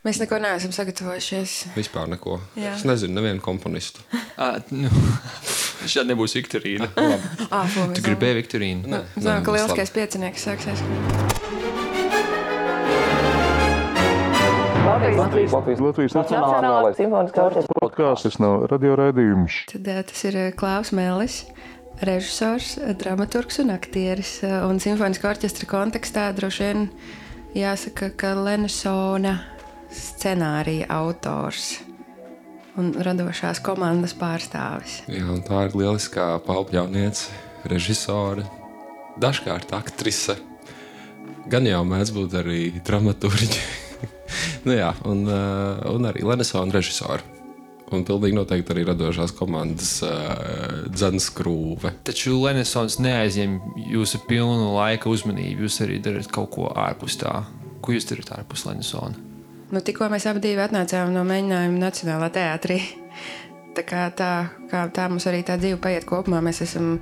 Mēs neko neesam sagatavojušies. Vispār neko. Jā. Es nezinu nevienu komponistu. Šādi nebūs Viktorīna. Tu gribēji Viktorīnu? Nē, Zinām, ka tas lieliskais piecinieks sāksies. Latvijas Nacionālais simfoniskais orķestris podkāsts nav radioraidījums. Tad tas ir Klaus Mellis, režisors, dramaturgs un aktieris. Un simfoniskā orķestra kontekstā droši vien jāsaka, ka Lenesona scenārija autors un radošās komandas pārstāvis. Jā, un tā ir lieliskā paupļauniece, režisore, dažkārt aktrise. Gan jau mēdz būt arī dramaturģi. Nu jā, un arī Lenesona režisori. Un pilnīgi noteikti arī radošās komandas dzenskrūve. Taču Lenesons neaizņem jūsu pilnu laika uzmanību. Jūs arī darat kaut ko ārpus tā. Ko jūs darat ārpus Lenesona? Nu, tikko mēs abi atnācām no mēģinājuma Nacionālā teātrī. Tā mums arī tā dzīve paiet kopumā. Mēs esam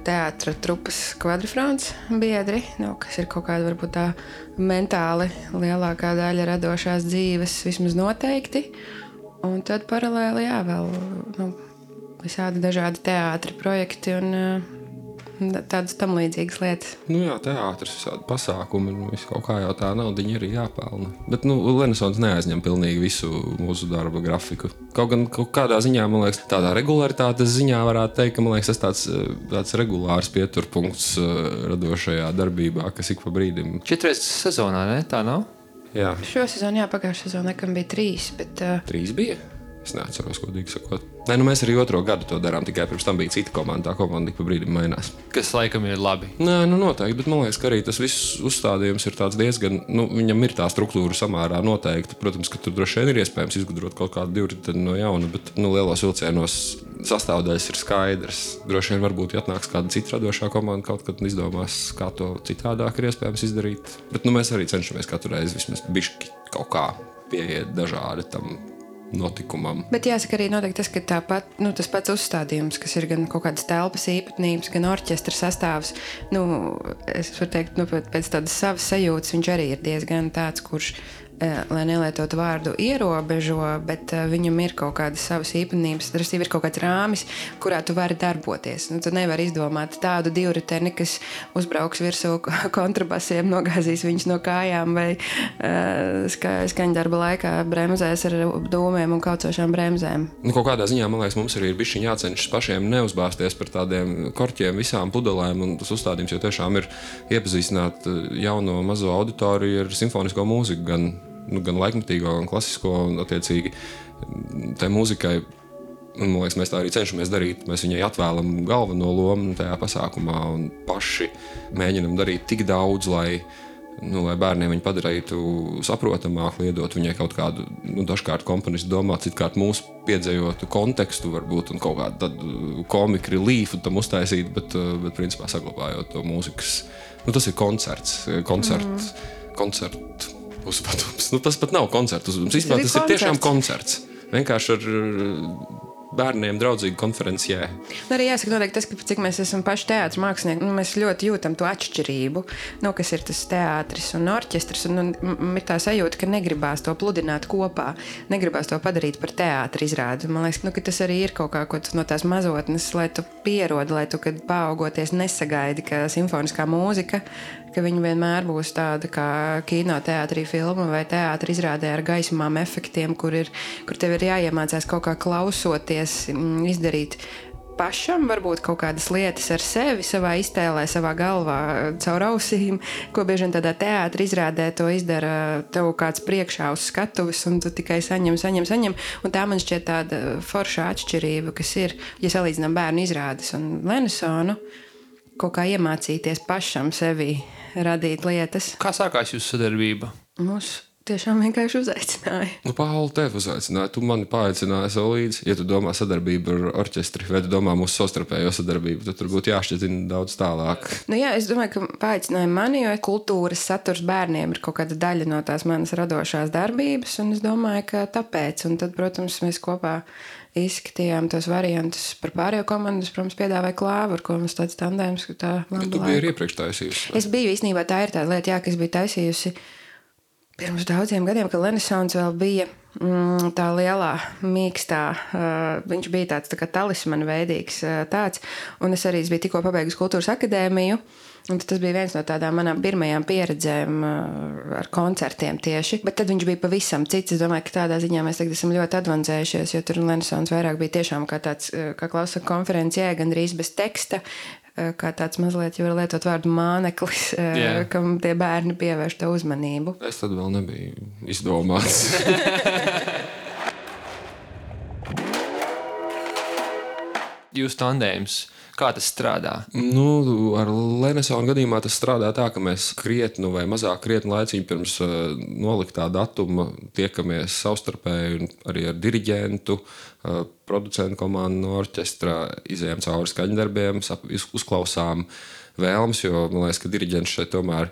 teātra trupas kvadrifrons biedri, kas ir kaut kāda varbūt tā mentāli lielākā daļa radošās dzīves, vismaz noteikti. Un tad paralēli, vēl visādi dažādi teātri projekti un tādas tam līdzīgas lietas. Nu jā, teātris, visādi pasākumi, visu kaut kā jau tā naudiņa arī jāpelna. Bet, Lenesons neaizņem pilnīgi visu mūsu darba grafiku. Kaut gan kaut kādā ziņā, man liekas, tādā regularitātes ziņā varētu teikt, ka, man liekas, tas tāds regulārs pieturpunkts radošajā darbībā, kas ik pa brīdim. 4 reizes sezonā, ne? Tā nav? Jā. Šo sezonu, pagājušā sezonā, nekam bija 3, bet... 3 bija? Es neatceros, godīgi sakot. Nē, mēs arī 2. gadu to darām, tikai pirms tam bija cita komanda. Tā komanda ik pa brīdim mainās. Kas laikam ir labi. Nē, noteikti, bet man liekas, ka arī tas viss uzstādījums ir tāds diezgan, viņam ir tā struktūra samērā noteikti. Protams, ka tur droši vien ir iespējams izgudrot kaut kādu divriteni no jauna, bet lielos vilcienos sastāvdaļas ir skaidrs. Droši vien varbūt atnāks kāda cita radošā komanda kaut kad un izdomās, kā to citādāk ir iespējams izdarīt. Bet mēs arī cenšamies katru reizi vismaz bišķi kaut kā pieiet dažādi tam notikumam. Bet jāsaka arī noteikti tas, ka tāpat, tas pats uzstādījums, kas ir gan kaut kādas telpas īpatnības, gan orķestra sastāvs, es varu teikt, pēc tādas savas sajūtas viņš arī ir diezgan tāds, kurš, lai nelietotu vārdu ierobežo, bet viņam ir kaut kādas savas īpatnības, ir kaut kāds rāmis, kurā tu vari darboties. Tu nevari izdomāt tādu divriteni, kas uzbrauks virsū kontrabasiem, nogāzīs viņus no kājām vai skaņdarba laikā bremzēs ar dūmiem un kaucošām bremzēm. Kaut kādā ziņā, man liekas, mums arī ir bišķiņ jācenšas pašiem neuzbāzties par tādiem korķiem, visām pudelēm, un tas uzstādījums jau tiešām ir iepazīstināt jauno mazo auditoriju ar simfonisko mūziku, gan laikmatīgo, gan klasisko, un attiecīgi tai mūzikai, man liekas, mēs tā arī cenšamies darīt. Mēs viņai atvēlam galveno lomu tajā pasākumā un paši mēģinam darīt tik daudz, lai bērniem viņu padarītu saprotamāk, liedot viņai kaut kādu, dažkārt komponistu domāt, citkārt mūsu piedzējotu kontekstu varbūt un kaut kādu tādu komiku relīfu tam uztaisīt, bet principā saglabājot to mūzikas. Tas ir koncertu uzvedums. Tas pat nav koncertu uzvedums. Vispār tas ir tiešām koncerts. Vienkārši ar bērniem draudzīgu konferencijā. Arī jāsaka noteikti tas, ka cik mēs esam paši teātris mākslinieki, mēs ļoti jūtam to atšķirību, kas ir tas teātris un orķestris, un ir tā sajūta, ka negribās to pludināt kopā, negribās to padarīt par teātra izrādi. Man liekas, ka tas arī ir kaut kā no tās mazotnes, lai tu pierodi, lai tu, kad paaugoties, nesagaidi, ka simfoniskā mūzika, ka viņa vienmēr būs tāda kā kino teātrī filma vai teātra izrādē ar gaismām efektiem, kur tev ir jāiemācās kaut kā klausoties, izdarīt pašam, varbūt kaut kādas lietas ar sevi, savā iztēlē, savā galvā, caur ausīm, ko bieži vien tādā teātra izrādē to izdara tev kāds priekšā uz skatuves, un tu tikai saņem. Un tā man šķiet tāda foršā atšķirība, kas ir, ja salīdzinām bērnu izrādes un Lenesonu, kaut kā iemācīties pašam sevi radīt lietas. Kā sākās jūsu sadarbība? Mūs tiešām vienkārši uzaicināja. Pauli, tevi uzaicināja. Tu mani paaicināji sev līdzi. Ja tu domā sadarbību ar orķestri, vai tu domā mūsu savstarpējo sadarbību, tad tur būtu jāšķietina daudz tālāk. Jā, es domāju, ka paaicināja mani, jo kultūras saturs bērniem ir kaut kāda daļa no tās manas radošās darbības, un es domāju, ka tāpēc. Un tad, protams, mēs kopā izskatījām tos variantus par pārējo komandu. Es, protams, piedāvāju Klāvu, ar ko mums tāds tandēms, ka tā Tu biji arī iepriekš taisījusi. Es biju, īstenībā tā ir tā lieta, ka es biju taisījusi pirms daudziem gadiem, kad Renesons vēl bija tā lielā, mīkstā, viņš bija tāds tā kā talismana veidīgs tāds, un es arī biju tikko pabeigusi kultūras akadēmiju, un tas bija viens no tādām manām pirmajām pieredzēm ar koncertiem tieši, bet tad viņš bija pavisam cits. Es domāju, ka tādā ziņā mēs tagad esam ļoti advancējušies, jo tur Renesons vairāk bija tiešām kā tāds, kā klausa konferencijē, gandrīz bez teksta, kā tāds mazliet, ja var lietot vārdu māneklis, kam tie bērni pievērš to uzmanību. Es tad vēl nebiju izdomāts. Jūs tandēms, kā tas strādā? Nu, ar Renesona gadījumā tas strādā tā, ka mēs krietni vai mazāk krietni laicīgi pirms noliktā datuma tiekamies savstarpēji un arī ar diriģentu, producentu komandu no orķestra, izējām cauri skaņdarbiem, uzklausām vēlmes, jo man liekas, ka diriģents šeit tomēr,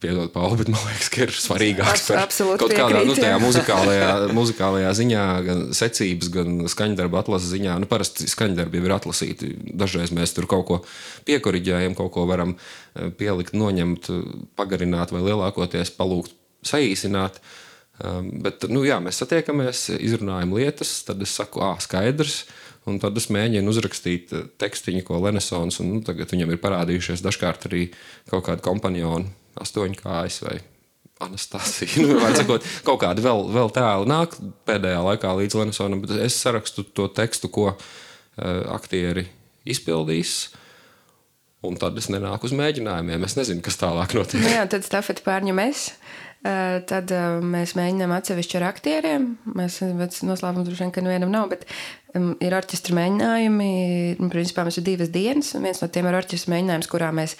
piedod Pauli, bet man liekas, ka ir svarīgāks par kaut kādā tajā muzikālajā ziņā, gan secības, gan skaņdarba atlases ziņā. Parasti skaņdarbi jau ir atlasīti. Dažreiz mēs tur kaut ko piekoriģējam, kaut ko varam pielikt, noņemt, pagarināt vai lielākoties palūgt saīsināt. Bet, mēs satiekamies, izrunājam lietas, tad es saku, skaidrs, un tad es mēģinu uzrakstīt tekstiņu, ko Renesons, un tagad viņam ir parādījušies dažkārt arī kaut kādi kompanjoni, 8 kājas vai Anastasija. Sakot, kaut kādi vēl tēli nāk pēdējā laikā līdz Renesonam, bet es sarakstu to tekstu, ko aktieri izpildīs, un tad es nenāku uz mēģinājumiem. Es nezinu, kas tālāk notiek. Jā, tad stafeti pārņem es. Tad mēs mēģinām atsevišķi ar aktieriem. Mēs noslēpums droši vien, ka nevienam nav, bet ir orķestra mēģinājumi. Principā mums ir 2 dienas, un viens no tiem ir orķestra mēģinājums, kurā mēs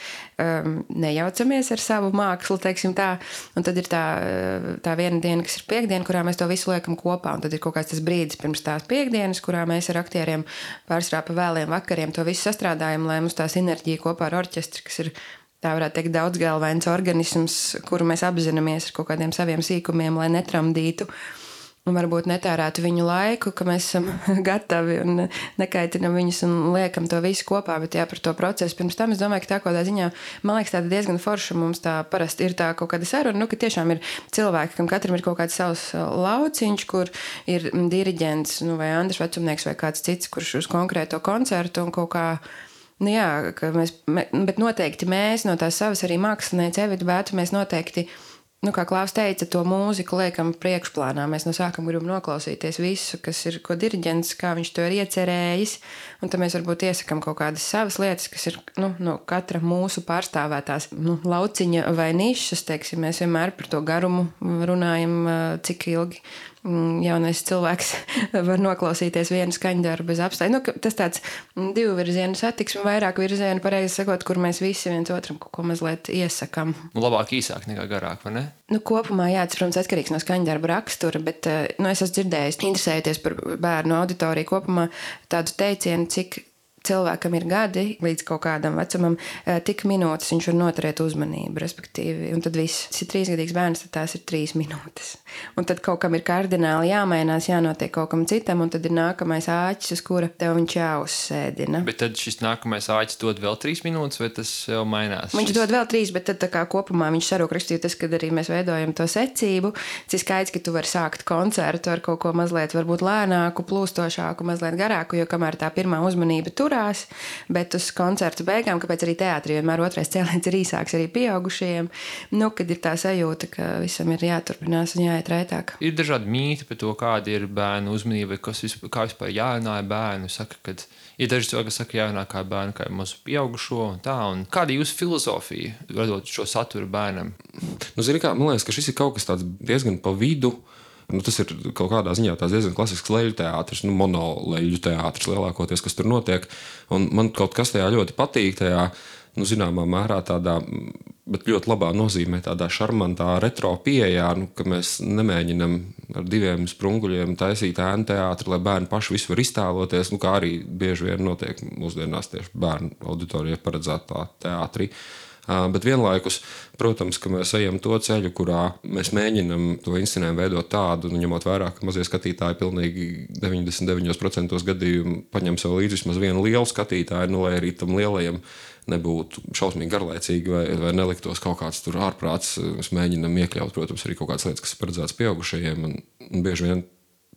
nejaucamies ar savu mākslu, teiksim tā. Un tad ir tā viena diena, kas ir piekdiena, kurā mēs to visu liekam kopā. Un tad ir kaut kāds tas brīdis pirms tās piekdienas, kurā mēs ar aktieriem pārsvarā pa vēliem vakariem to visu sastrādājam, lai mums tā sinerģija kopā ar orķestri, kas ir tā varētu teikt daudzgalvains organisms, kuru mēs apzināmies ar kaut kādiem saviem sīkumiem, lai netramdītu un varbūt netērētu viņu laiku, ka mēs esam gatavi un nekaitinam viņus un liekam to visu kopā, bet par to procesu. Pirms tam es domāju, ka tā kādā ziņā, man liekas, tāda diezgan forša mums tā parasti ir tā kaut kāda saruna, ka tiešām ir cilvēki, kam katram ir kaut kāds savs lauciņš, kur ir diriģents, vai Andris Vecumnieks vai kāds cits, kurš uz konkrēto koncertu un kaut kā bet noteikti mēs no tās savas arī mākslinieci Evita Bētu, mēs noteikti, kā Klaus teica, to mūziku liekam priekšplānā. Mēs no sākuma gribam noklausīties visu, kas ir, ko diriģents, kā viņš to ir iecerējis, un tad mēs varbūt iesakam kaut kādas savas lietas, kas ir, no katra mūsu pārstāvētās, lauciņa vai nišas, teiksim, mēs vienmēr par to garumu runājam, cik ilgi jaunais cilvēks var noklausīties vienu skaņdarbu bez apstāja. Tas tāds 2 virzienu satiksme, vairāk virzienu, pareizi sakot, kur mēs visi viens otram kaut ko mazliet iesakam. Labāk īsāk nekā garāk, vai ne? Kopumā, tas, protams, atkarīgs no skaņdarba rakstura, bet es esmu dzirdējis, interesējoties par bērnu auditoriju kopumā, tādu teicienu, cik cilvēkam ir gadi līdz kaut kādam vecumam, tik minūtes viņš var noturēt uzmanību, respektīvi. Un tad viss, tas ir 3-gadīgs bērns, tad tās ir 3 minūtes. Un tad kaut kam ir kardināli jāmainās, jānotiek kaut kam citam, un tad ir nākamais āķis, uz kura tev viņš jāuzsēdina. Bet tad šis nākamais āķis dod vēl 3 minūtes, vai tas jau mainās? Viņš dod vēl 3, bet tad tā kā kopumā viņš sarūk rakstīja tas, kad arī mēs veidojam to secību. Tas ir skaidrs, ka tu vari sākt koncertu ar kaut ko mazliet varbūt lēnāku, plūstošāku, mazliet garāku, jo kamēr tā pirmā uzmanība tur bet uz koncertu beigām, kāpēc arī teātrī vienmēr otrais cēliens ir īsāks arī pieaugušajiem, kad ir tā sajūta, ka visam ir jāturpinās un jāiet raitāk. Ir dažādi mīti par to, kāda ir bērnu uzmanība, kā vispār jārunā ar bērnu. Saka, ka ir daži cilvēki, kas saka, jārunā kā bērnu, kā mazu pieaugušo un tā. Un kāda ir jūsu filozofija, radot šo saturu bērnam? Man liekas, ka šis ir kaut kas tāds diezgan pa vidu. Tas ir kaut kādā ziņā diezgan klasisks leļu teātris, monoleļu teātris lielākoties, kas tur notiek. Un man kaut kas tajā ļoti patīk, tajā, zināmā mērā tādā, bet ļoti labā nozīmē tādā šarmantā retro pieejā, ka mēs nemēģinam ar 2 sprunguļiem taisīt ēnu teātri, lai bērni paši visu var iztēloties, kā arī bieži vien notiek mūsdienās tieši bērnu auditorijai paredzētā teātrī. Bet vienlaikus, protams, ka mēs ejam to ceļu, kurā mēs mēģinam to inscenējumu veidot tādu, ņemot vērā, ka mazie skatītāji pilnīgi 99% gadījumu paņem sev līdzi vismaz vienu lielu skatītāju, lai arī tam lielajam nebūtu šausmīgi garlaicīgi vai neliktos kaut kāds tur ārprāts. Mēs mēģinam iekļaut, protams, arī kaut kādas lietas, kas ir paredzētas pieaugušajiem, un bieži vien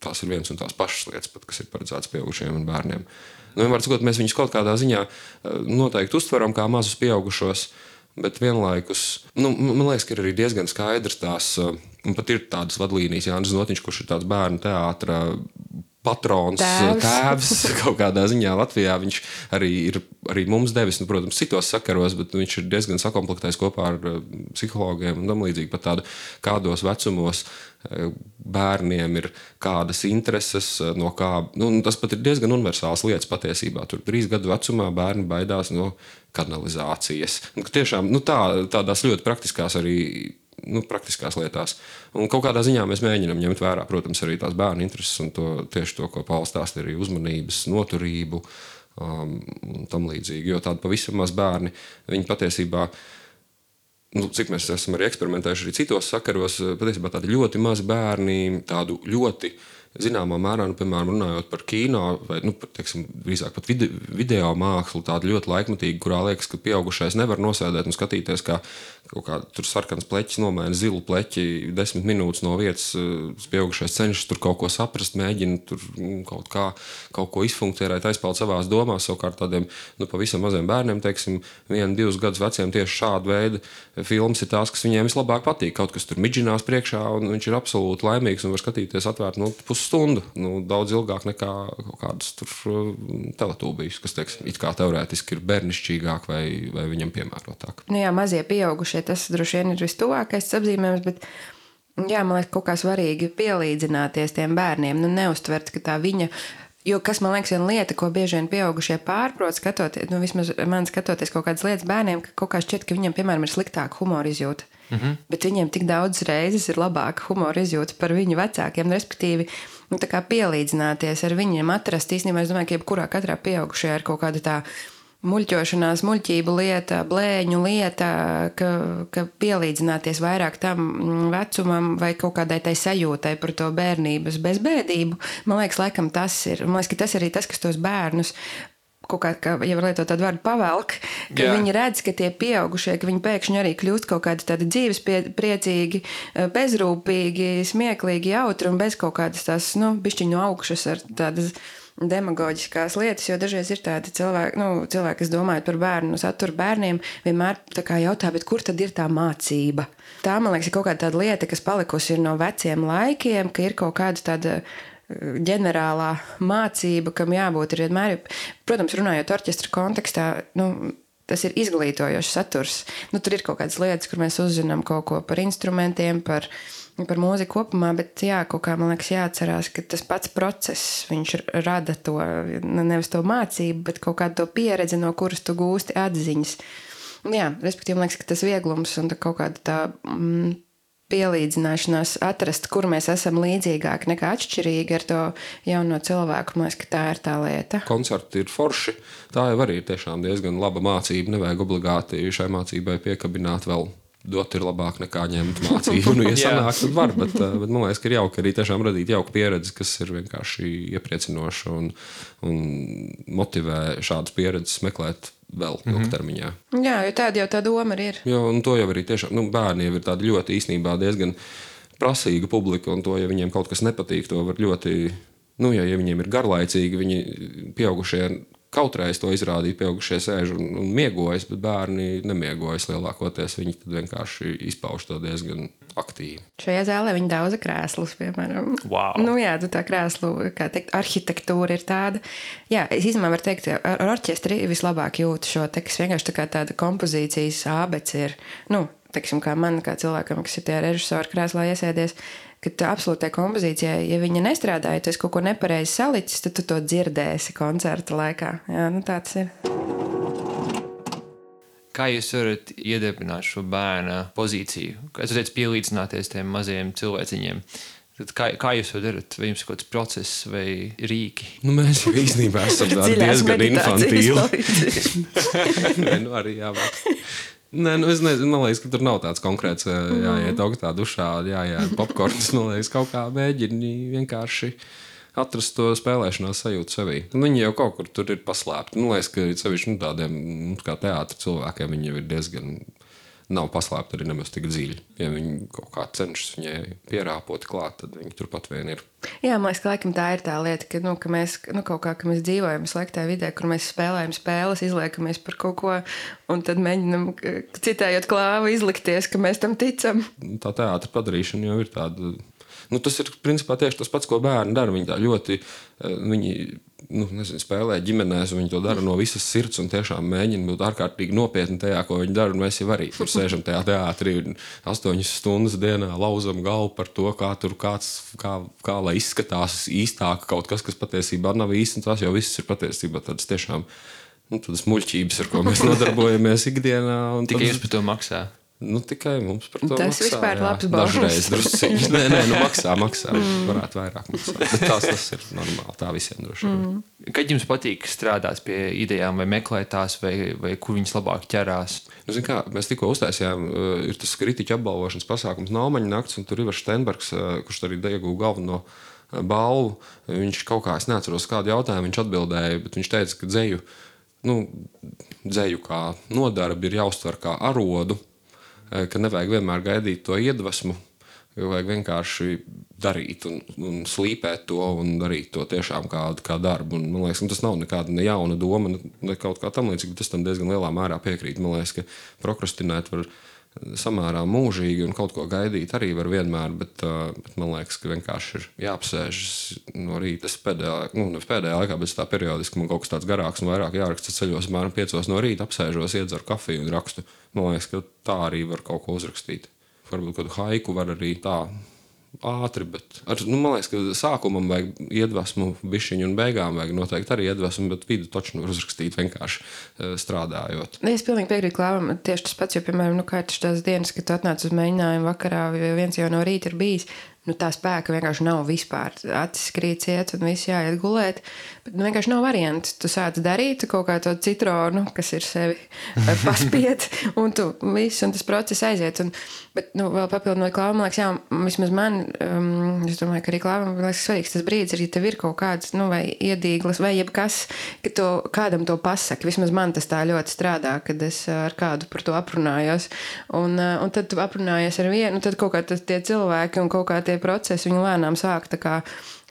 tās ir viens un tās pašas lietas, pat, kas ir paredzētas pieaugušajiem un bērniem. Vienmēr sakot, mēs viņus kaut kādā ziņā noteikti uztveram kā mazus pieaugušos, bet vienlaikus, man liekas, ka ir arī diezgan skaidrs tās, un pat ir tādas vadlīnijas, Jānis Znotiņš, kurš ir tāds bērnu teātra patrons, tēvs kaut kādā ziņā Latvijā. Viņš arī ir mums devis, protams, citos sakaros, bet viņš ir diezgan sakomplektais kopā ar psihologiem un tam līdzīgi pat tādu, kādos vecumos bērniem ir kādas intereses, no kā, tas pat ir diezgan universāls lietas patiesībā. Tur 3 gadu vecumā bērni baidās no kanalizācijas. Tiešām, tādās ļoti praktiskās arī praktiskās lietās. Un kaut kādā ziņā mēs mēģinām ņemt vērā, protams, arī tās bērnu intereses un tieši to, ko Pauls stāsta, arī uzmanības, noturību un tam līdzīgi. Jo tādi pavisam maz bērni, viņi patiesībā, cik mēs esam arī eksperimentējuši arī citos sakaros, patiesībā tādi ļoti mazi bērni, tādu ļoti zināmā mērā, piemēram, runājot par kino vai, teiksim, drīzāk pat video mākslu, tādu ļoti laikmatīgu, kurā liekas, ka pieaugušais nevar nosēdēt un skatīties, kā kaut kā tur sarkans pleķis nomaina zilu pleķi 10 minūtes no vietas, pieaugušais cenšas tur kaut ko saprast, mēģina tur kaut ko izfunkcionēt, aizpeld savās domās, savukārt tādiem, pavisam maziem bērniem, teiksim, 1-2 gadus veciem tieši šāda veida filmas ir tās, kas viņiem vislabāk patīk. Kaut kas tur midžinās priekšā, un viņš ir absolūti laimīgs un var skatīties atvērt pusstundu, daudz ilgāk nekā kaut kādas tur teletūbijas, kas, teiksim, it kā teorētiski ir bērnišķīgāk vai viņam piemērotāk. Jā, mazie pieaugušie, tas droši vien ir vistuvākais apzīmējums, bet jā, man liekas, kaut kā svarīgi pielīdzināties tiem bērniem, neuztvert, ka tā viņa, jo kas man liekas viena lieta, ko bieži vien pieaugušie pārprot skatoties, vismaz man skatoties kaut kādas lietas bērniem, ka kaut kā šķiet, ka viņiem, piemēram, ir sliktāka humora izjūta. Bet viņiem tik daudz reizes ir labāka humora izjūta par viņu vecākiem, respektīvi, tā kā pielīdzināties ar viņiem, atrast īstenībā, es domāju, ka jebkurā katrā pieaugušajā ir kaut kāda tā muļķošanās, muļķību lieta, blēņu lieta, ka pielīdzināties vairāk tam vecumam vai kaut kādai tai sajūtai par to bērnības bezbēdību. Man liekas, laikam tas ir. Man liekas, ka tas arī tas, kas tos bērnus kaut kā, ja var lietot tādu vārdu pavelk, ka viņi redz, ka tie pieaugušie, ka viņi pēkšņi arī kļūst kaut kādi tādi dzīves priecīgi, bezrūpīgi, smieklīgi, jautri un bez kaut kādas tās, bišķiņu augšas ar tādas demagoģiskās lietas, jo dažreiz ir tādi cilvēki, kas domājot par bērnu, saturu bērniem, vienmēr tā kā jautā, bet kur tad ir tā mācība? Tā, man liekas, ir kaut kāda tāda lieta, kas palikusi ir no veciem laikiem, ka ir kaut kāda tāda ģenerālā mācība, kam jābūt ir vienmēr, protams, runājot orķestra kontekstā, tas ir izglītojošs saturs. Tur ir kaut kādas lietas, kur mēs uzzinām kaut ko par instrumentiem, par mūziku kopumā, bet kaut kā, man liekas, jāatcerās, ka tas pats process, viņš rada to, nevis to mācību, bet kaut kādu to pieredzi, no kuras tu gūsti atziņas. Respektīvi, man liekas, ka tas vieglums un kaut kāda tā pielīdzināšanās atrast, kur mēs esam līdzīgāki nekā atšķirīgi ar to jauno cilvēku. Man liekas, ka tā ir tā lieta. Koncerti ir forši. Tā jau arī ir tiešām diezgan laba mācība. Nevajag obligāti šai mācībai piekabināt vēl. Dot ir labāk nekā ņemt mācību. Ja sanāk, tad var, bet man liekas, ka ir jauki arī tiešām radīt jauku pieredzi, kas ir vienkārši iepriecinoša un motivē šādas pieredzes meklēt vēl ilgtermiņā. Jā, jo tāda jau tā doma ir. Jo, un to jau arī tiešām, bērni jau ir tādi ļoti īstenībā diezgan prasīga publika, un to, ja viņiem kaut kas nepatīk, to var ļoti, ja viņiem ir garlaicīgi, viņi pieaugušie kautreiz to izrādīt, pieaugušie sēž un miegojas, bet bērni nemiegojas lielākoties. Viņi tad vienkārši izpauž to diezgan aktīvi. Šajā zālē viņi daudza krēslus, piemēram. Wow. Tā krēslu, kā teikt, arhitektūra ir tāda. Jā, es īstenībā varu teikt, ar orķestri vislabāk jūtu šo te, kas vienkārši tā kā tāda kompozīcijas ābeci ir, teiksim, kā man, kā cilvēkam, kas ir tie režisori krēslā iesēdies, ka tā absolūtai kompozīcijai, ja viņa nestrādāja, tu esi kaut ko nepareizi salicis, tad tu to dzirdēsi koncerta laikā. Jā, tā tas ir. Kā jūs varat iedarbināt šo bērna pozīciju? Kā jūs teicat, pielīdzināties tiem mazajiem cilvēciņiem? Tad kā jūs to darat? Vai jums ir kaut kāds process vai rīki? Mēs jau īstenībā esam diezgan infantīli. Arī jābūt. Nē, es nezinu, man liekas, ka tur nav tāds konkrēts, jāiet augstā dušā, jāiet popkorns, man liekas, kaut kā mēģini vienkārši atrast to spēlēšanās sajūtu sevī. Viņi jau kaut kur tur ir paslēpti. Man liekas, ka sevišķi tādiem kā teātra cilvēkiem viņi jau ir diezgan nav paslēpti arī nemaz tik dziļi. Ja viņi kaut kā cenšas viņai pierāpot klāt, tad viņi turpat vien ir. Jā, man liekas, ka laikam tā ir tā lieta, ka mēs kaut kā, ka mēs dzīvojam sliktā vidē, kur mēs spēlējam spēles, izliekamies par kaut ko, un tad mēģinam citējot klāvu izlikties, ka mēs tam ticam. Tā teātra padarīšana jau ir tāda. Tas ir principā tieši tas pats, ko bērni dara. Viņi tā ļoti spēlē ģimenēs, un viņi to dara no visas sirds un tiešām mēģina būt ārkārtīgi nopietni tajā, ko viņi dara. Un mēs jau arī tur sēžam tajā teātrī 8 stundas dienā, lauzam galvu par to, kā tur kā lai izskatās īstāk kaut kas, kas patiesībā nav īsti. Tas jau viss ir patiesībā tādas tiešām tādas muļķības, ar ko mēs nodarbojamies ikdienā. Tikai jūs par to maksā. Tikai mums par to tas maksā. Tas vispār labs balvs. Dažreiz drusciņš. Nē, maksā. Varētu vairāk maksāt. Bet tas ir normāli. Tā visiem droši. Kad jums patīk strādāt pie idejām vai meklēt tās, vai kur viņas labāk ķerās? Mēs tikko uztaisījām, ir tas kritiķu apbalvošanas pasākums Naumaņa nakts, un tur Ivars Steinbergs, kurš arī ieguva galveno balvu. Viņš kaut kā, es neatceros kādu jautājumu, viņš atbildēja, bet viņš teica, ka dzeju kā nodarbi ir jāuztver kā arodu, ka nevajag vienmēr gaidīt to iedvesmu, jo vajag vienkārši darīt un slīpēt to un darīt to tiešām kā darbu. Un, man liekas, tas nav nekāda ne jauna doma, ne kaut kā tam līdzīga, bet es tam diezgan lielā mērā piekrītu. Man liekas, ka prokrastinēt var samērā mūžīgi un kaut ko gaidīt arī var vienmēr, bet man liekas, ka vienkārši ir jāapsēžas no rīta. Nevis pēdējā laikā, bet tā periodiski man kaut kas tāds garāks un vairāk jāraksta ceļos, apmēram 5 no rīta apsēžos, iedzeru kafiju un rakstu. Man liekas, ka tā arī var kaut ko uzrakstīt. Varbūt kādu haiku var arī tā ātri, bet man liekas, ka sākumam vajag iedvesmu bišķiņu un beigām vajag noteikti arī iedvesmu, bet vidu taču var uzrakstīt vienkārši strādājot. Es pilnīgi piekrītu Klāvam, tieši tas pats, jo, piemēram, kā ir tās dienas, kad tu atnāc uz mēģinājumu vakarā, viens jau no rīta ir bijis, tā spēka vienkārši nav vispār. Acis krīt ciet un viss jāiet gulēt, bet vienkārši nav varianti. Tu sāc darīt kaut kā to citronu, kas ir sevi paspiet, un tu viss, un tas process aiziet. Bet vēl papildinot Klāvam, man liekas, jā, vismaz man, es domāju, ka arī Klāvam, man liekas, svarīgs tas brīdis, arī tev ir kaut kāds, vai iedīglas, vai jebkas, ka tu kādam to pasaki. Vismaz man tas tā ļoti strādā, kad es ar kādu par to aprunājos. Un tad tu aprunājies ar vienu, tad kaut kā tie cilvēki un kaut kā tie procesi, viņi lēnām sāk tā kā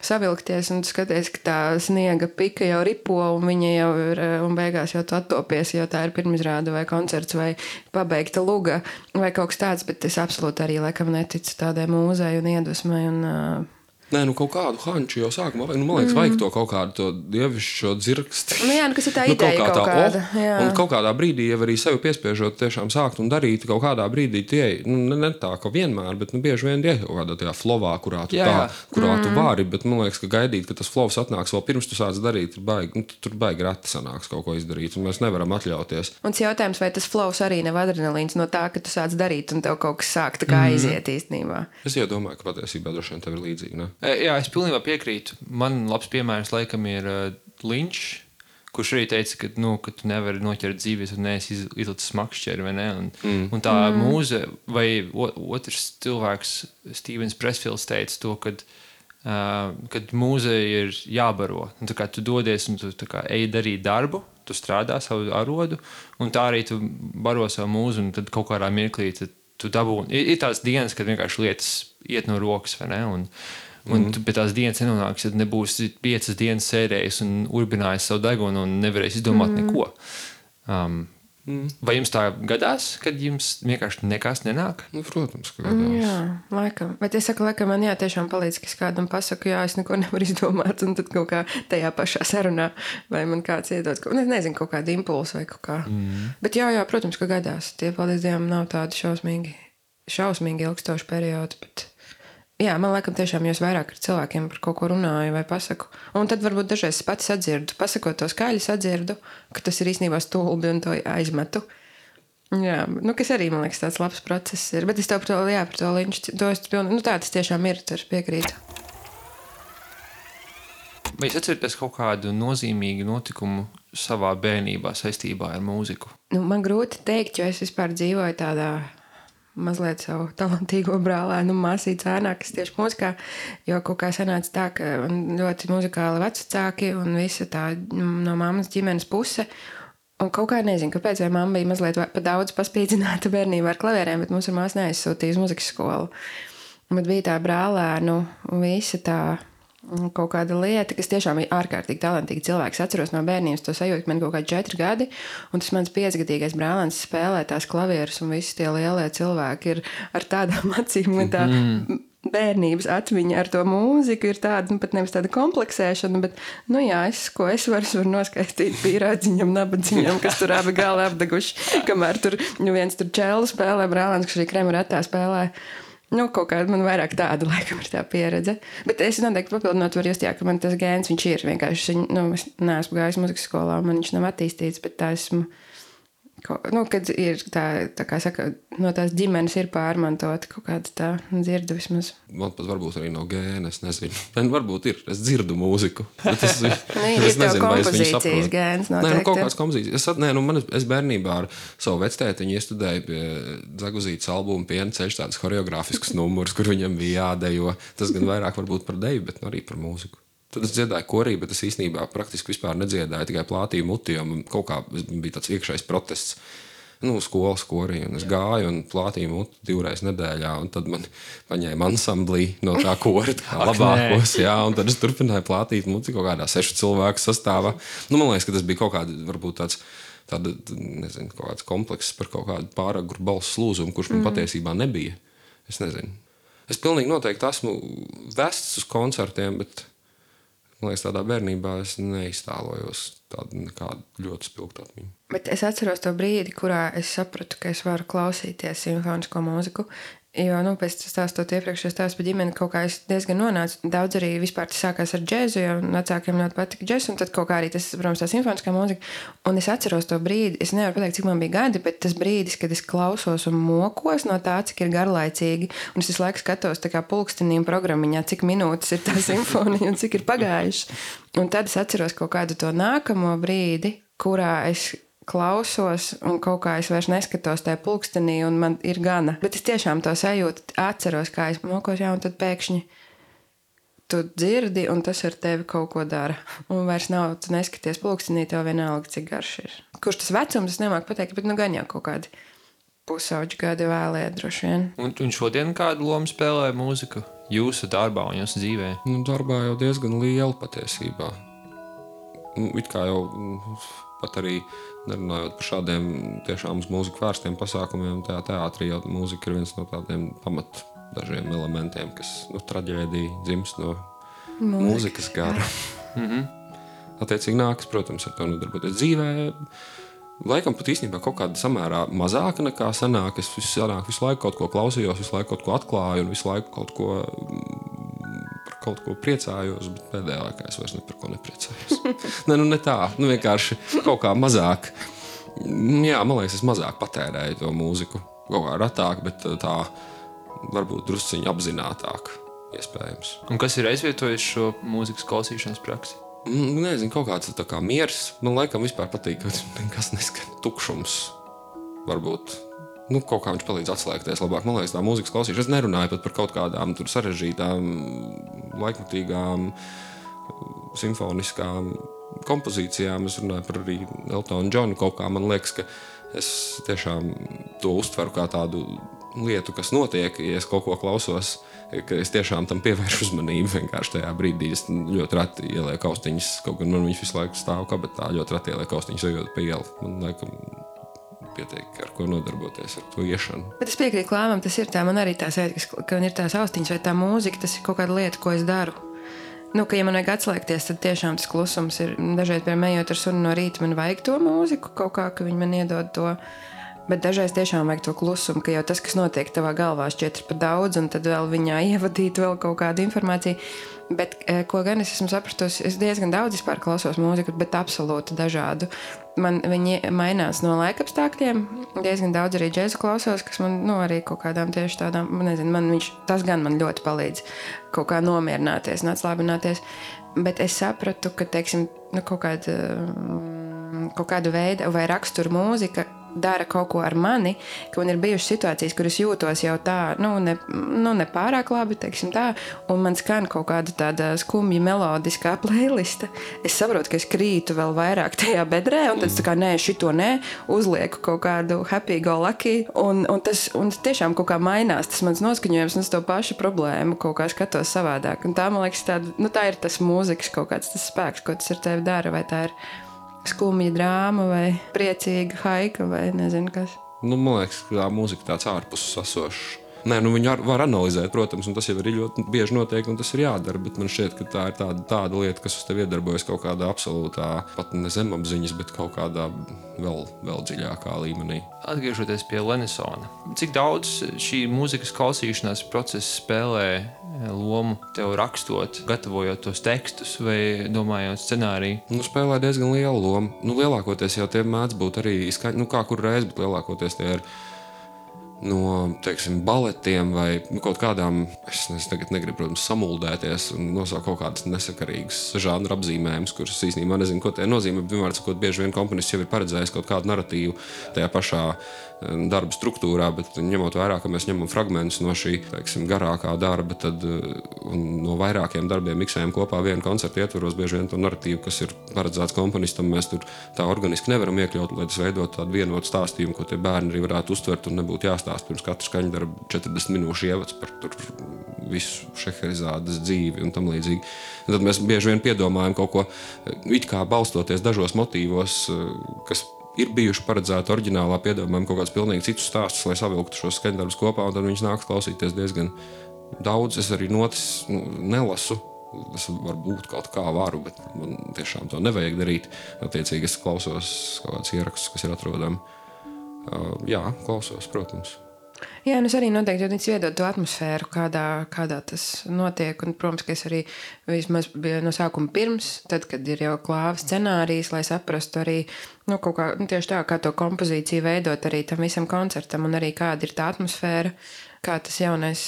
savilkties, un tu skaties, ka tā sniega pika jau ripo, un viņa jau ir, un beigās jau tu attopies, jo tā ir pirmizrāde vai koncerts vai pabeigta luga vai kaut kas tāds, bet es absolūti arī laikam neticu tādai mūzei un iedvesmai un Nē, kaut kādu hanču jau sākumā vajag. Man liekas, vajag to kaut kādu to dievišķo dzirksti. Kas ir tā ideja kaut kāda. Un kaut kādā brīdī jau arī sevi piespiežot tiešām sākt un darīt, kaut kādā brīdī tie, ne tā, ka vienmēr, bet bieži vien tie kaut kādā tajā flowā, kurā tu tu vari, bet man liekas, ka gaidīt, ka tas flows atnāks vēl pirms tu sāc darīt, tur baigi reti sanāks kaut ko izdarīt, un mēs nevaram atļauties. Un tas jautājums, vai tas flows arī nav adrenalīns no tā, ka tu sāc darīt un tev kaut kas sāk tā kā aiziet īstenībā. Es jau domāju, ka patiesībā droši vien tev ir līdzīgi, ne? Jā, es pilnībā piekrītu. Man labs piemērs laikam ir Linčs, kurš arī teica, ka tu nevari noķert dzīvi, ja tu neesi izlicis makšķeri, vai ne? Un tā mūze, vai otrs cilvēks, Stevens Pressfields, teica to, kad mūze ir jābaro. Un tā kā tu dodies un tu tā kā ej darīt darbu, tu strādā savu arodu, un tā arī tu baro savu mūzu, un tad kaut kādā mirklī tu dabūni. Ir tās dienas, kad vienkārši lietas iet no rokas, vai ne? Un tu pie tās dienas nenonāks, ja nebūsi 5 dienas sēdējis un urbinājis savu degunu un nevarēs izdomāt neko. Vai jums tā gadās, kad jums vienkārši nekas nenāk? Protams, ka gadās. Jā, laikam. Bet es saku, laikam man tiešām palīdz, ka es kādam pasaku, es neko nevaru izdomāt, un tad kaut kā tajā pašā sarunā, vai man kāds iedod, nezinu, kaut kādu impulsu vai kaut kā. Bet jā, protams, ka gadās. Tie, paldies Dievam, nav tādi šausmīgi ilgstoši periodi, bet jā, man laikam tiešām jūs vairāk ar cilvēkiem par kaut ko runāju vai pasaku. Un tad varbūt dažreiz es pati sadzirdu, pasakot to skaļi sadzirdu, ka tas ir īstenībā stulbi un to aizmetu. Jā, kas arī, man liekas, tāds labs process ir. Bet es tev par to Linču, tā tas tiešām ir, tur piekrītu. Vai jūs atceraties kaut kādu nozīmīgu notikumu savā bērnībā saistībā ar mūziku? Nu, man grūti teikt, jo es vispār dzīvoju tādā mazliet savu talantīgo brālēnu māsīcu ēnā, kas tieši mūzikā, jo kaut kā sanāca tā, ka man ļoti muzikāli vecāki un visa tā no mammas ģimenes puse. Un kaut kā nezinu, kāpēc, vai mamma bija mazliet pa daudz paspīdzināta bērnībā ar klavierēm, bet mums ar māsu neaizsūtīja uz muzikas skolu. Bet bija tā brālēnu visa tā kaut kāda lieta, kas tiešām bija ārkārtīgi talantīgi cilvēks. Atceros no bērnības to sajūtu, ka man kaut kādi 4 gadi, un tas mans 5-gadīgais brālēns spēlē tās klavierus, un visi tie lielie cilvēki ir ar tādām acīm, un tā bērnības atmiņa ar to mūziku ir tāda, nu pat nevis tāda kompleksēšana, bet, nu jā, ko es varu noskaistīt pīrādziņam, nabadziņam, kas tur abi gali apdeguši, kamēr tur viens tur čēlu spēlē, brālēns, kas arī Kremeratā spēlē. Nu, kaut kāda man vairāk tāda, laikam, ir tā pieredze. Bet es noteikti papildinot varu just, jā, ka man tas gēns, viņš ir vienkārši, es neesmu gājis muzikas skolā, man viņš nav attīstīts, bet tā esmu, kad ir tā kā saka, no tās ģimenes ir pārmantota kaut kāda tā dzirdu vismaz. Man pat varbūt arī no gēna, es nezinu. Varbūt ir, es dzirdu mūziku. Es nezinu, vai es viņu saprotu. Gēns noteikti. Kaut kāds kompozīcijas. Es bērnībā ar savu vectētiņu iestudēju pie Zaguzītes albuma Piena ceļš tādas horeogrāfiskas numurus, kur viņam bija jādejo. Tas gan vairāk varbūt par deju, bet arī par mūziku. Tad es dziedāju korī, bet es īstenībā praktiski vispār nedziedāju, tikai plātīju muti, jo man kaut kā bija tāds iekšējs protests. Skolas korī, un es gāju un plātīju muti 2 reizes nedēļā, un tad man paņēma ansamblī no tā kora labākos, jā, un tad es turpināju plātīt muti kaut kādā 6 cilvēku sastāvā. Man liekas, ka tas bija kaut kāda, varbūt nezinu, kaut kāds komplekss par kaut kādu pāragru balsu slūzumu, kurš man patiesībā nebija. Es nezinu. Es pilnīgi noteikti esmu vests uz koncertiem, bet man liekas, tādā bērnībā es neiztēlojos tādu nekādu ļoti spilgtu atmiņu. Bet es atceros to brīdi, kurā es sapratu, ka es varu klausīties simfonisko mūziku, jo, pēc stāstot iepriekš, es stāstu par ģimeni, kaut kā es diezgan nonācu. Daudz arī vispār tas sākās ar džezu, jo vecākiem ļoti patika džez, un tad kaut kā arī tas, protams, tā simfoniskā mūzika. Un es atceros to brīdi, es nevaru pateikt, cik man bija gadi, bet tas brīdis, kad es klausos un mokos no tā, cik ir garlaicīgi, un es visu laiku skatos tā kā pulkstenīm programmiņā, cik minūtes ir tā simfonija un cik ir pagājuši. Un tad es atceros kaut kādu to nākamo brīdi, kurā es klausos un kaut kā es vairs neskatos tajā pulkstenī un man ir gana. Bet es tiešām to sajūtu, atceros, kā es mokos, jā, un tad pēkšņi tu dzirdi un tas ar tevi kaut ko dara. Un vairs nav, tu neskaties pulkstenī, tev vienalga, cik garš ir. Kurš tas vecums, es nemāku pateikt, bet gan jau kaut kādi pusauģi gadi vēlē droši vien. Un šodien kādu lomu spēlē mūzika jūsu darbā un jūsu dzīvē? Darbā jau diezgan liela patiesībā. It kā jau pat arī nerunājot par šādiem tiešām uz mūziku vērstiem pasākumiem, tajā teātrī jau mūzika ir viens no tādiem pamat dažiem elementiem, kas traģēdija dzimst no mūzikas gara. Attiecīgi nākas, protams, ar to nodarboties dzīvē. Laikam pat īstenībā kaut kāda samērā mazāka nekā sanāk. Es visu laiku kaut ko klausījos, visu laiku kaut ko atklāju un visu laiku kaut ko priecājos, bet pēdējā laikā es vairs ne par ko nepriecājos. Ne tā, vienkārši kaut kā mazāk. Jā, man liekas, es mazāk patērēju to mūziku. Kaut kā ratāk, bet tā varbūt drusciņi apzinātāk iespējams. Un kas ir aizvietojis šo mūzikas klausīšanas praksi? Nezinu, kaut kāds tā kā miers. Man laikam vispār patīk, ka nekas neskan tukšums. Varbūt. Kaut kā viņš palīdz atslēgties labāk. Man liekas, tā mūzikas klausīšana. Es nerunāju pat par kaut kādām tur sarežģītām, laikmatīgām, simfoniskām kompozīcijām. Es runāju par arī Eltonu Džonu. Kaut kā man liekas, ka es tiešām to uztveru kā tādu lietu, kas notiek, ja es kaut ko klausos, ka es tiešām tam pievēršu uzmanību vienkārši tajā brīdī. Es ļoti reti ielieku austiņas, kaut gan man viņš visu laiku stāv kabetā, ļoti reti ielieku austiņas ejot pa ielu. Man laikam pietiek, ar ko nodarboties, ar to iešanu. Bet es piekrītu Klāvam, tas ir tā, man arī tā sajūta, ka man ir tās austiņas vai tā mūzika, tas ir kaut kāda lieta, ko es daru. Ka ja man vajag atslēgties, tad tiešām tas klusums ir, dažreiz, piemēram, ejot ar sunu no rīta, man vajag to mūziku, kaut kā, ka viņi man iedod to, bet dažreiz tiešām vajag to klusumu, ka jau tas, kas notiek tavā galvā, šķiet par daudz, un tad vēl viņā ievadīt vēl kaut kādu informāciju. Bet, ko gan es esmu sapratusi, es diezgan daudz vispār klausos mūziku, bet absolūti dažādu. Viņi mainās no laikapstākļiem, diezgan daudz arī džēzu klausos, kas man, arī kaut kādām tieši tādām, nezinu, tas gan man ļoti palīdz kaut kā nomierināties un atslābināties. Bet es sapratu, ka, teiksim, kaut kāda kaut kādu veidu vai raksturu mūzika dara kaut ko ar mani, ka man ir bijušas situācijas, kur es jūtos jau tā, ne pārāk labi, teiksim tā, un man skan kaut kāda tāda skumja melodiskā playlista. Es saprotu, ka es krītu vēl vairāk tajā bedrē, un tad tā kā nē, šito nē, uzlieku kaut kādu happy go lucky, un tiešām kaut kā mainās tas mans noskaņojums, un es to pašu problēmu kaut kā skatos savādāk. Un tā, man liekas, tā ir tas mūzikas kaut kāds tas spēks, ko tas ar tevi dara, vai tā ir skumja drāma vai priecīga haika vai nezinu kas. Man liekas, ka tā mūzika tāds ārpus sasošs. Nē, viņu var analizēt, protams, un tas jau arī ļoti bieži notiek, un tas ir jādara, bet man šķiet, ka tā ir tāda lieta, kas uz tevi iedarbojas kaut kādā absolūtā, pat ne zemapziņas, bet kaut kādā vēl dziļākā līmenī. Atgriežoties pie Lenisona, cik daudz šī mūzikas klausīšanās procesa spēlē lomu tev rakstot, gatavojot tos tekstus vai domājot scenāriju? Spēlē diezgan lielu lomu. Lielākoties jau tie mēdz būt arī skaņi, kā kur reiz, bet lielākoties tie ir no, teiksim, baletiem vai kaut kādām, es tagad negribu, protams, samuldēties un nosaukt kaut kādas nesakarīgas žanra apzīmējumus, kuras īstenībā nezinu, ko tie nozīmē, bet vienmēr sakot, bieži vien komponists jau ir paredzējis kaut kādu narratīvu tajā pašā darba struktūrā, bet ņemot vērā, ka mēs ņemam fragmentus no šī, teiksim, garākā darba, tad no vairākiem darbiem miksējam kopā vienu koncertu ietvaros, bieži vien to narratīvu, kas ir paredzēts komponistam, mēs tur tā organiski nevaram iekļaut, lai tas veidot tādu vienotu stāstījumu, ko tie bērni arī varētu uztvert un nebūtu jāstāst pirms katra skaņdarba 40 minūšu ievads par tur visu Šeherizādes dzīvi un tam līdzīgi. Un tad mēs bieži vien piedomājam kaut ko, it kā balstoties dažos motīvos, kas ir bijuši paredzēti oriģinālā, piedomājam kaut kādus pilnīgi citus stāstus, lai savilktu šos skaņdarbus kopā, un tad viņus nāks klausīties diezgan daudz. Es arī notis nelasu. Es varbūt kaut kā varu, bet man tiešām to nevajag darīt. Attiecīgi es klausos kaut kādus ierakstus, kas ir atrodami. Jā, klausos, protams. Jā, es arī noteikti iedod to atmosfēru, kādā tas notiek. Un, protams, ka es arī vismaz biju no sākuma pirms, tad, kad ir jau klāva scenārijs, lai saprastu arī kaut kā, tieši tā, kā to kompozīciju veidot arī tam visam koncertam un arī kāda ir tā atmosfēra, kā tas jaunais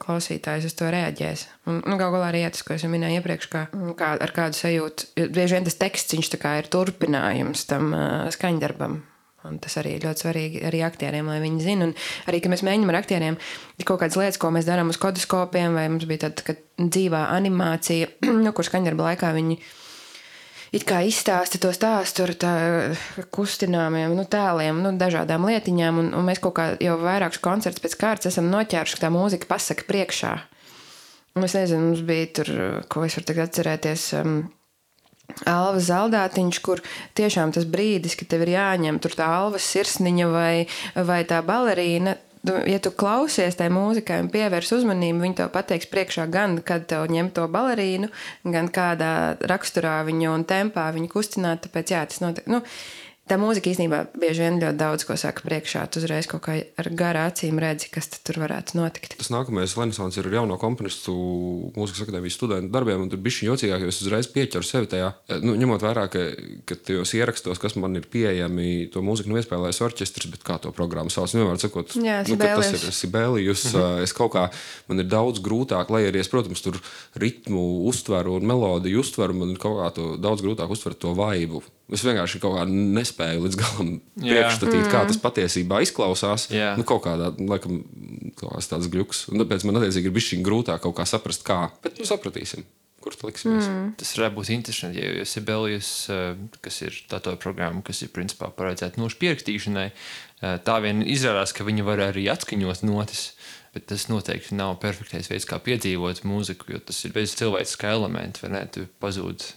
klausītājs uz to reaģēs. Un galu galā arī tas, ko es minēju iepriekš, kā ar kādu sajūtu. Bieži vien tas teksts, viņš tā kā ir turpinājums tam skaņdarbam. Un tas arī ir ļoti svarīgi arī aktieriem, lai viņi zina. Un arī, ka mēs mēģinām ar aktieriem kaut kādas lietas, ko mēs darām uz kodoskopiem, vai mums bija tāda dzīvā animācija, kur skaņdarba laikā viņi it kā izstāsta to stāstu ar tā kustināmiem tēliem, dažādām lietiņām. Un mēs kaut kā jau vairākus koncertus pēc kārtas esam noķēruši, ka tā mūzika pasaka priekšā. Un es nezinu, mums bija tur, ko es varu tagad atcerēties, Alva Zaldātiņš, kur tiešām tas brīdis, ka tev ir jāņem tur tā Alvas sirsniņa vai tā balerīna, ja tu klausies tai mūzikai un pievērs uzmanību, viņi tev pateiks priekšā gan, kad tev ņem to balerīnu, gan kādā raksturā viņu un tempā viņu kustināt, tāpēc jā, tas notiek. Tā mūzika īstenībā bieži vien ļoti daudz ko saka priekšā. Tu uzreiz kaut kā ar garā acīm redzi, kas tur varētu notikt. Tas nākamais Lenisons ir jauno komponistu mūzikas akadēmijas studentu darbiem, un tur bišķiņ jocīgāk, jo es uzreiz pieķeru sevi tajā. Ņemot vērā, ka tajos ierakstos, kas man ir pieejami, to mūziku iespēlēs orķestris, bet kā to programmu sauc, nevar sakot, tas ir Sibelijus. Es kaut kā, man ir daudz grūtāk, lai arī es, protams, tur ritmu uztveru un melodiju uztveru, man ir kaut kā to daudz grūtāk uztvert to vaibu. Es vienkārši kaut kā nespēju līdz galam priekšstatīt, kā tas patiesībā izklausās. Kaut kādā, laikam, tāds gļuks. Un tāpēc man attiecīgi ir bišķiņ grūtāk kaut kā saprast, kā. Bet sapratīsim, kur tu liksimies. Tas varētu būt interesanti, jo Sibelijus, kas ir tā programma, kas ir principā paredzēta nošu pierakstīšanai, tā vien izrādās, ka viņi var arī atskaņot notis. Bet tas noteikti nav perfektais veids, kā piedzīvot mūziku, jo tas ir bez cilvēciskā elementa, vai ne? Tu pazūd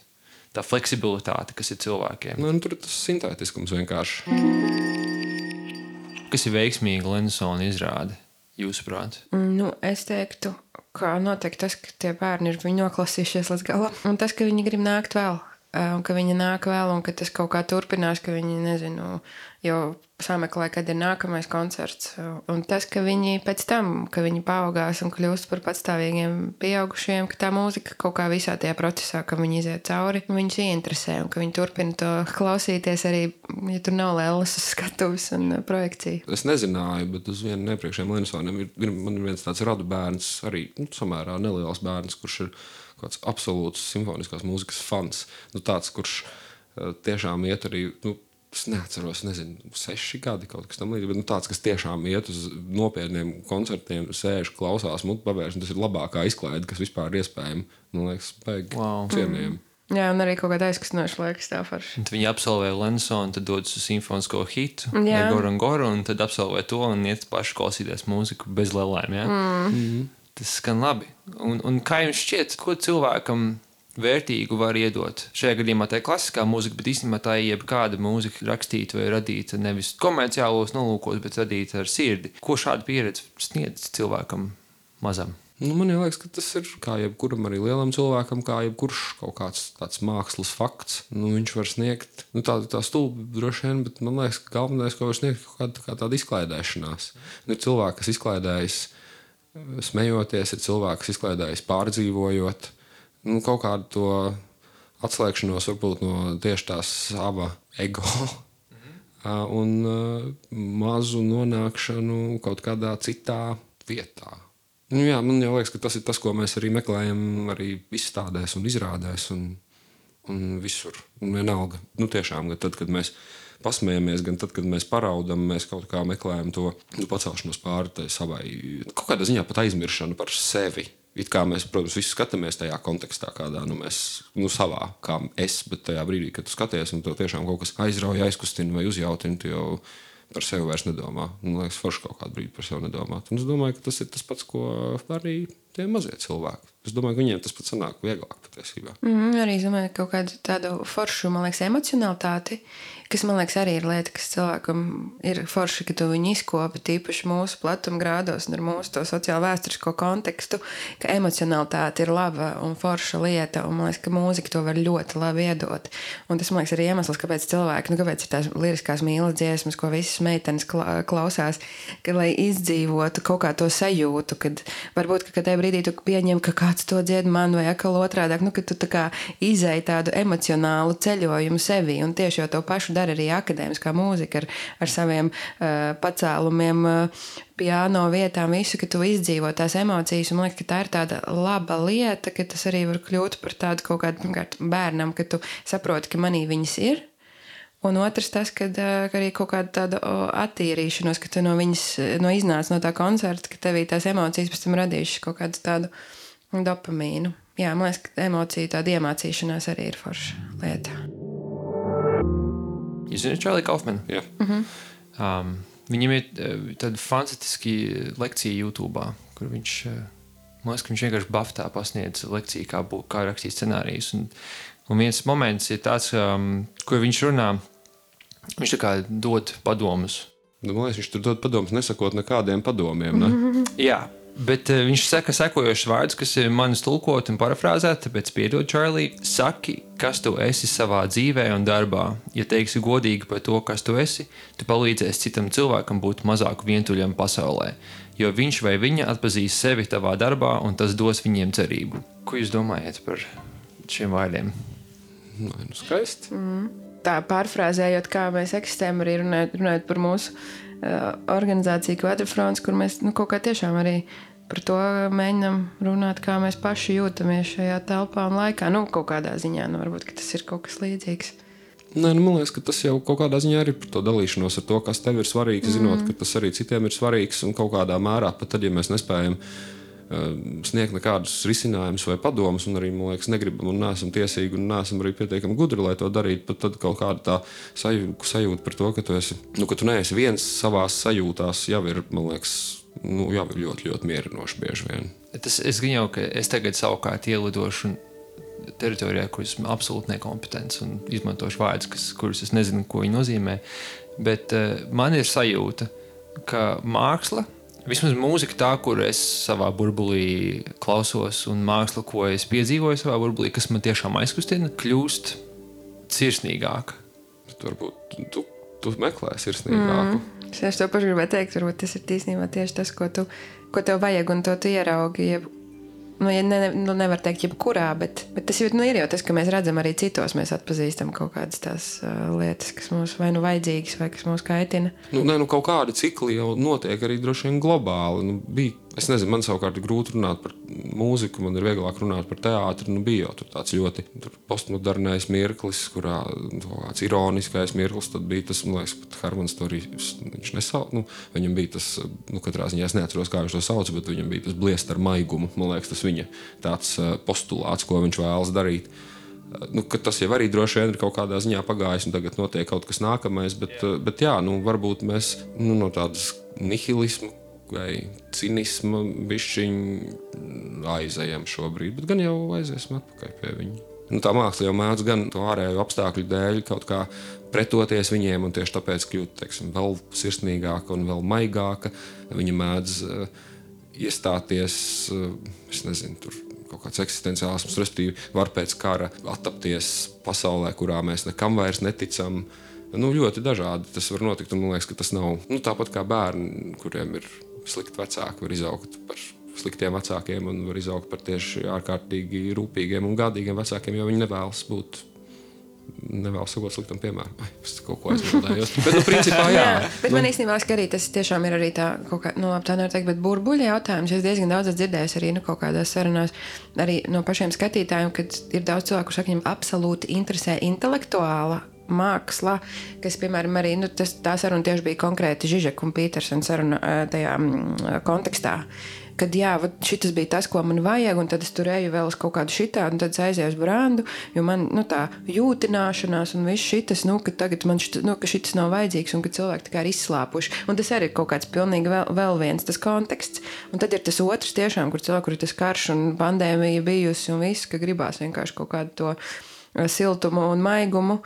tā fleksibilitāte, kas ir cilvēkiem. Tur tas sintētiskums vienkārši. Kas ir veiksmīgi Lenisona izrāde, jūsuprāt? Es teiktu, ka noteikti tas, ka tie bērni ir viņu noklasījušies līdz galam. Un tas, ka viņi grib nākt vēl. Un ka viņi nāk vēl, un ka tas kaut kā turpinās, ka viņi, nezinu, jau sameklē, kad ir nākamais koncerts. Un tas, ka viņi pēc tam, ka viņi paaugās un kļūst par patstāvīgiem pieaugušiem, ka tā mūzika kaut kā visā tajā procesā, ka viņi iziet cauri, viņus ieinteresē, un ka viņi turpina to klausīties arī, ja tur nav lēlas uz skatuves un projekcija. Es nezināju, bet uz vienu iepriekšējiem Lenisoniem man ir viens tāds radu bērns, arī samērā neliels bērns, kurš ir kāds absolūts simfoniskās mūzikas fans. Tāds, kurš tiešām iet arī, es neatceros, 6 gadi kaut kas tam līdzīgs, bet tāds, kas tiešām iet uz nopietniem koncertiem, sēž, klausās, mutu pavērš, un tas ir labākā izklaide, kas vispār ir iespējama. Man liekas, baigi cienījami. Jā, un arī kaut kāda aizkustinoša liekas tā forši. Viņi absolvē Lensonu, tad dodas uz simfonisko hitu, Goru, un tad absolvē to un iet paši klausīties mūziku bez lelēm, jā? Tas skan labi. Un kā jums šķiet, ko cilvēkam vērtīgu var iedot? Šajā gadījumā tā ir klasiskā mūzika, bet īstenībā tā ir jebkāda mūzika rakstīta vai radīta nevis komerciālos nolūkos, bet radīta ar sirdi. Ko šāda pieredze sniedz cilvēkam mazam? Man liekas, ka tas ir kā jebkuram arī lielam cilvēkam, kā jebkurš kaut kāds tāds mākslas fakts. Viņš var sniegt tā stulbi droši vien, bet man liekas, ka galvenais, ko var sniegt, kaut kā tāda izklaidēšanās. Ir cilvēki, kas izklaidējas smejoties, ir cilvēki, kas izklaidējas pārdzīvojot. Kaut kādu to atslēgšanos varbūt no tieši tā sava ego un mazu nonākšanu kaut kādā citā vietā. Jā, man jau liekas, ka tas ir tas, ko mēs arī meklējam arī izstādēs un izrādēs un visur. Un vienalga, tiešām, gan tad, kad mēs pasmējamies, gan tad, kad mēs paraudam, mēs kaut kā meklējam to pacelšanos pāri savai, kaut kādā ziņā pat aizmiršanu par sevi. It kā mēs, protams, visi skatāmies tajā kontekstā, kādā mēs savā, kā es, bet tajā brīdī, kad tu skaties un tev tiešām kaut kas aizrauja, aizkustina vai uzjautina, tu jau par sevi vairs nedomā. Man liekas, forši kaut kādu brīdi par sevi nedomāt. Un es domāju, ka tas ir tas pats, ko arī tie mazie cilvēki. Es domāju, ka viņiem tas pats sanāk vieglāk patiesībā. Arī es domāju, kaut kādu tādu foršu, man liekas, emocionalitāti, kas, man liekas, arī ir lieta, kas cilvēkam ir forši, ka tu viņu izkopi tīpaši mūsu platumgrādos un ar mūsu to sociālo vēsturisko kontekstu, ka emocionalitāte ir laba un forša lieta, un man liekas, ka mūzika to var ļoti labi iedot. Un tas, man liekas, ir iemesls, kāpēc cilvēki, kāpēc ir tās liriskās mīlas dziesmas, ko visas meitenes klausās, ka, lai izdzīvotu kaut kā to sajūtu, kad varbūt, ka tajā brīdī tu pieņem, ka kāds to dzied man vai atkal otrādāk, ka tu tā kā izēji tādu emocionālu ceļojumu sevi, un tieši jau to pašu dara arī akadēmiskā mūzika ar saviem pacēlumiem, piano vietām, visu, ka tu izdzīvo tās emocijas, un man liekas, ka tā ir tāda laba lieta, ka tas arī var kļūt par tādu kaut kādu, pirmkārt, bērnam, ka tu saproti, ka manī viņas ir, un otrs tas, ka arī kaut kāda tāda attīrīšanos, ka tu no viņas, iznāc no tā koncerta, ka tevī tās emocijas pēc tam radījušas kaut kādu tādu dopamīnu. Jā, man liekas, ka emocija tāda iemācīšanās arī ir forša lieta. Jūs zināt Charlie Kaufmanu? Jā. Viņam ir tāda fantastiski lekcija YouTube, kur viņš, man liekas, ka viņš vienkārši baftā pasniedz lekciju, kā rakstīt scenārijus. Un viens moments ir tāds, kur viņš runā, viņš tā kā dod padomus. Man liekas, viņš tur dod padomus, nesakot nekādiem padomiem, ne? Jā. Bet viņš saka sekojošus vārdus, kas ir manis tulkot un parafrāzēt, tāpēc piedod, Charlie, saki, kas tu esi savā dzīvē un darbā. Ja teiksi godīgi par to, kas tu esi, tu palīdzēsi citam cilvēkam būt mazāk vientuļam pasaulē, jo viņš vai viņa atpazīs sevi tavā darbā un tas dos viņiem cerību. Ko jūs domājat par šiem vārdiem? Skaisti. Tā pārfrāzējot, kā mēs eksistējam, arī runājot par mūsu organizāciju Quadrifrons, kur mēs kaut kā tiešām arī par to mēģinām runāt, kā mēs paši jūtamies šajā telpā un laikā. Kaut kādā ziņā, varbūt, ka tas ir kaut kas līdzīgs. Man liekas, ka tas jau kaut kādā ziņā ir par to dalīšanos ar to, kas tev ir svarīgs, zinot, ka tas arī citiem ir svarīgs un kaut kādā mērā, pat tad, ja mēs nespējam sniegt nekādus risinājumus vai padomus, un arī, man liekas, negribam un neesam tiesīgi un neesam arī pietiekami gudri, lai to darītu, pat tad kaut kāda tā sajūta par to, ka tu neesi viens savās sajūtās, jau ir, man liekas, jau ir ļoti, ļoti mierinoši bieži vien. Es gan jau, ka es tagad savukārt ielidošu teritorijā, kur esmu absolūti nekompetents un izmantošu vārdus, kurus es nezinu, ko viņi nozīmē, bet man ir sajūta, ka māksla, vismaz mūzika tā, kur es savā burbulī klausos, un māksla, ko es piedzīvoju savā burbulī, kas man tiešām aizkustina, kļūst sirsnīgāka. Varbūt tu meklē sirsnīgāku. Es to pašu gribēju teikt, varbūt tas ir tīsnībā tieši tas, ko tev vajag, un to tu ieraugi. Nevar teikt jebkurā, bet tas ir jau tas, ka mēs redzam arī citos, mēs atpazīstam kaut kādas tās lietas, kas mums vai vajadzīgas, vai kas mūs kaitina. Kaut kādi cikli jau notiek arī droši vien globāli. Bija Es nezinu, man savukārt ir grūti runāt par mūziku, man ir vieglāk runāt par teātri. Bija jau tāds ļoti postmodernais mirklis, kurā kāds ironiskais mirklis. Tad bija tas, man liekas, pat Hermans to arī viņš nesauc. Viņam bija tas, katrā ziņā es neatceros, kā viņš to sauc, bet viņam bija tas bliest ar maigumu. Man liekas, tas viņa tāds postulāts, ko viņš vēlas darīt. Tas jau arī droši vien ir kaut kādā ziņā pagājis, un tagad notiek kaut kas nākamais. Bet jā, varbūt mēs no tādas nihilismu vai cinisma bišķiņ aizējam šobrīd, bet gan jau aiziesim atpakaļ pie viņa. Tā māksla jau mēdz gan to ārēju apstākļu dēļ kaut kā pretoties viņiem, un tieši tāpēc kļūt, vēl sirsnīgāka un vēl maigāka. Viņa mēdz iestāties, es nezinu, tur kaut kāds eksistenciālisms, respektīvi var pēc kara attapties pasaulē, kurā mēs nekam vairs neticam. Ļoti dažādi tas var notikt, un man liekas, ka tas nav tāpat kā bērni, kuriem ir slikti vecāki, var izaugt par sliktiem vecākiem un var izaugt par tieši ārkārtīgi rūpīgiem un gādīgiem vecākiem, jo viņi nevēlas sakot sliktam piemēram. Es kaut ko aizmildējos. Bet, principā, jā. Bet man īstenībā liekas, ka arī tas tiešām ir arī tā, kaut kā, tā nevar teikt, bet burbuļa jautājums. Es diezgan daudz dzirdēju arī kaut kādās sarunās, arī no pašiem skatītājiem, kad ir daudz cilvēku, kurš saka, viņam absolūti interesē intelektuāla māksla, kas, piemēram, arī tā saruna tieši bija konkrēti Žižeka un Pītersena saruna tajā kontekstā, kad jā, šitas bija tas, ko man vajag, un tad es tur eju vēl uz kaut kādu šitādu, un tad es aizēju uz brandu, jo man tā jūtināšanās un viss šitas, ka tagad man ka šitas nav vajadzīgs, un ka cilvēki tā kā ir izslāpuši. Un tas arī ir kaut kāds pilnīgi vēl viens tas konteksts. Un tad ir tas otrs tiešām, kur cilvēku, kur ir tas karš un pandēmija bijusi un viss, ka gribās vienkārši kaut kādu to siltumu un maigumu.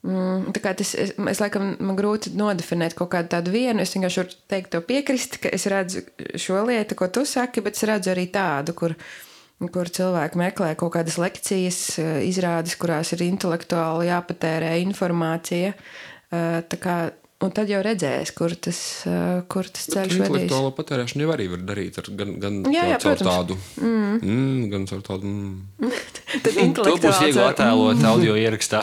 Tā kā es laikam man grūti nodefinēt kaut kādu tādu vienu, es vienkārši varu teikt to piekrist, ka es redzu šo lietu, ko tu saki, bet es redzu arī tādu, kur cilvēki meklē kaut kādas lekcijas, izrādes, kurās ir intelektuāli jāpatērē informācija, tā kā, un tad jau redzēs, kur tas ceļš vedīs. Intelektuālo patērēšanu jau arī var darīt gan caur tādu gan caur tādu To būs viegli attēlot audio ierakstā.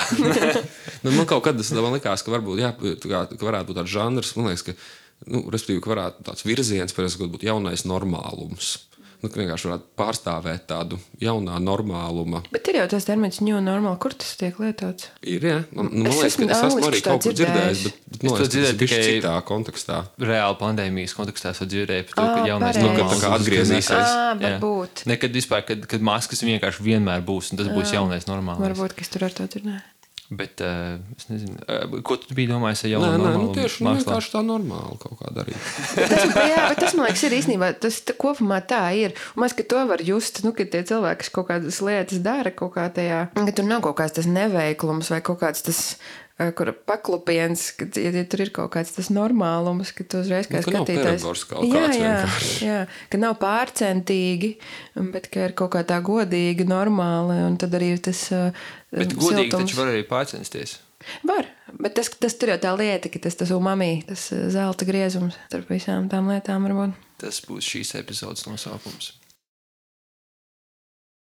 Man kaut kad man likās, ka varbūt ka varētu būt tāds žanrs, man liekas, ka respektīvi, ka varētu tāds virziens, ka būtu jaunais normālums. Vienkārši varētu pārstāvēt tādu jaunā normāluma. Bet ir jau tas termins new normal, kur tas tiek lietots? Ir, jā. Man liekas, ka es esmu arī kaut kur dzirdējis, bet man liekas, tas ir bišķi citā kontekstā. Reāli pandēmijas kontekstā es dzirdēju par to, ka jaunais normāls tā kā atgriezīsies. Varbūt. Nekad vispār, kad maskas vienkārši vienmēr būs, un tas būs jaunais normāls. Varbūt, ka es tur ar to dzirdēju. Bet es nezinu, ko tu biji domājis ar jaunu normālu? Tieši vienkārši tā normāli kaut kā darīt. bet tas, man liekas, ir īstenībā, tas kopumā tā ir. Un mēs, ka to var just, ka tie cilvēki, kas kaut kādas lietas dara, kaut kā tajā, ka tur nav kaut kāds tas neveiklums vai kaut kāds tas, kur paklupiens, ka ja tur ir kaut kāds tas normālums, ka tu uzreiz kā skatītājs. Jā, ka nav pārcentīgi, bet ka ir kaut kā tā godīgi, normāli, un tad arī tas bet godīgi taču var arī pārcensties. Var, bet tas tur jau tā lieta, ka tas umami, tas zelta griezums starp visām tām lietām varbūt. Tas būs šīs epizodes nosaukums.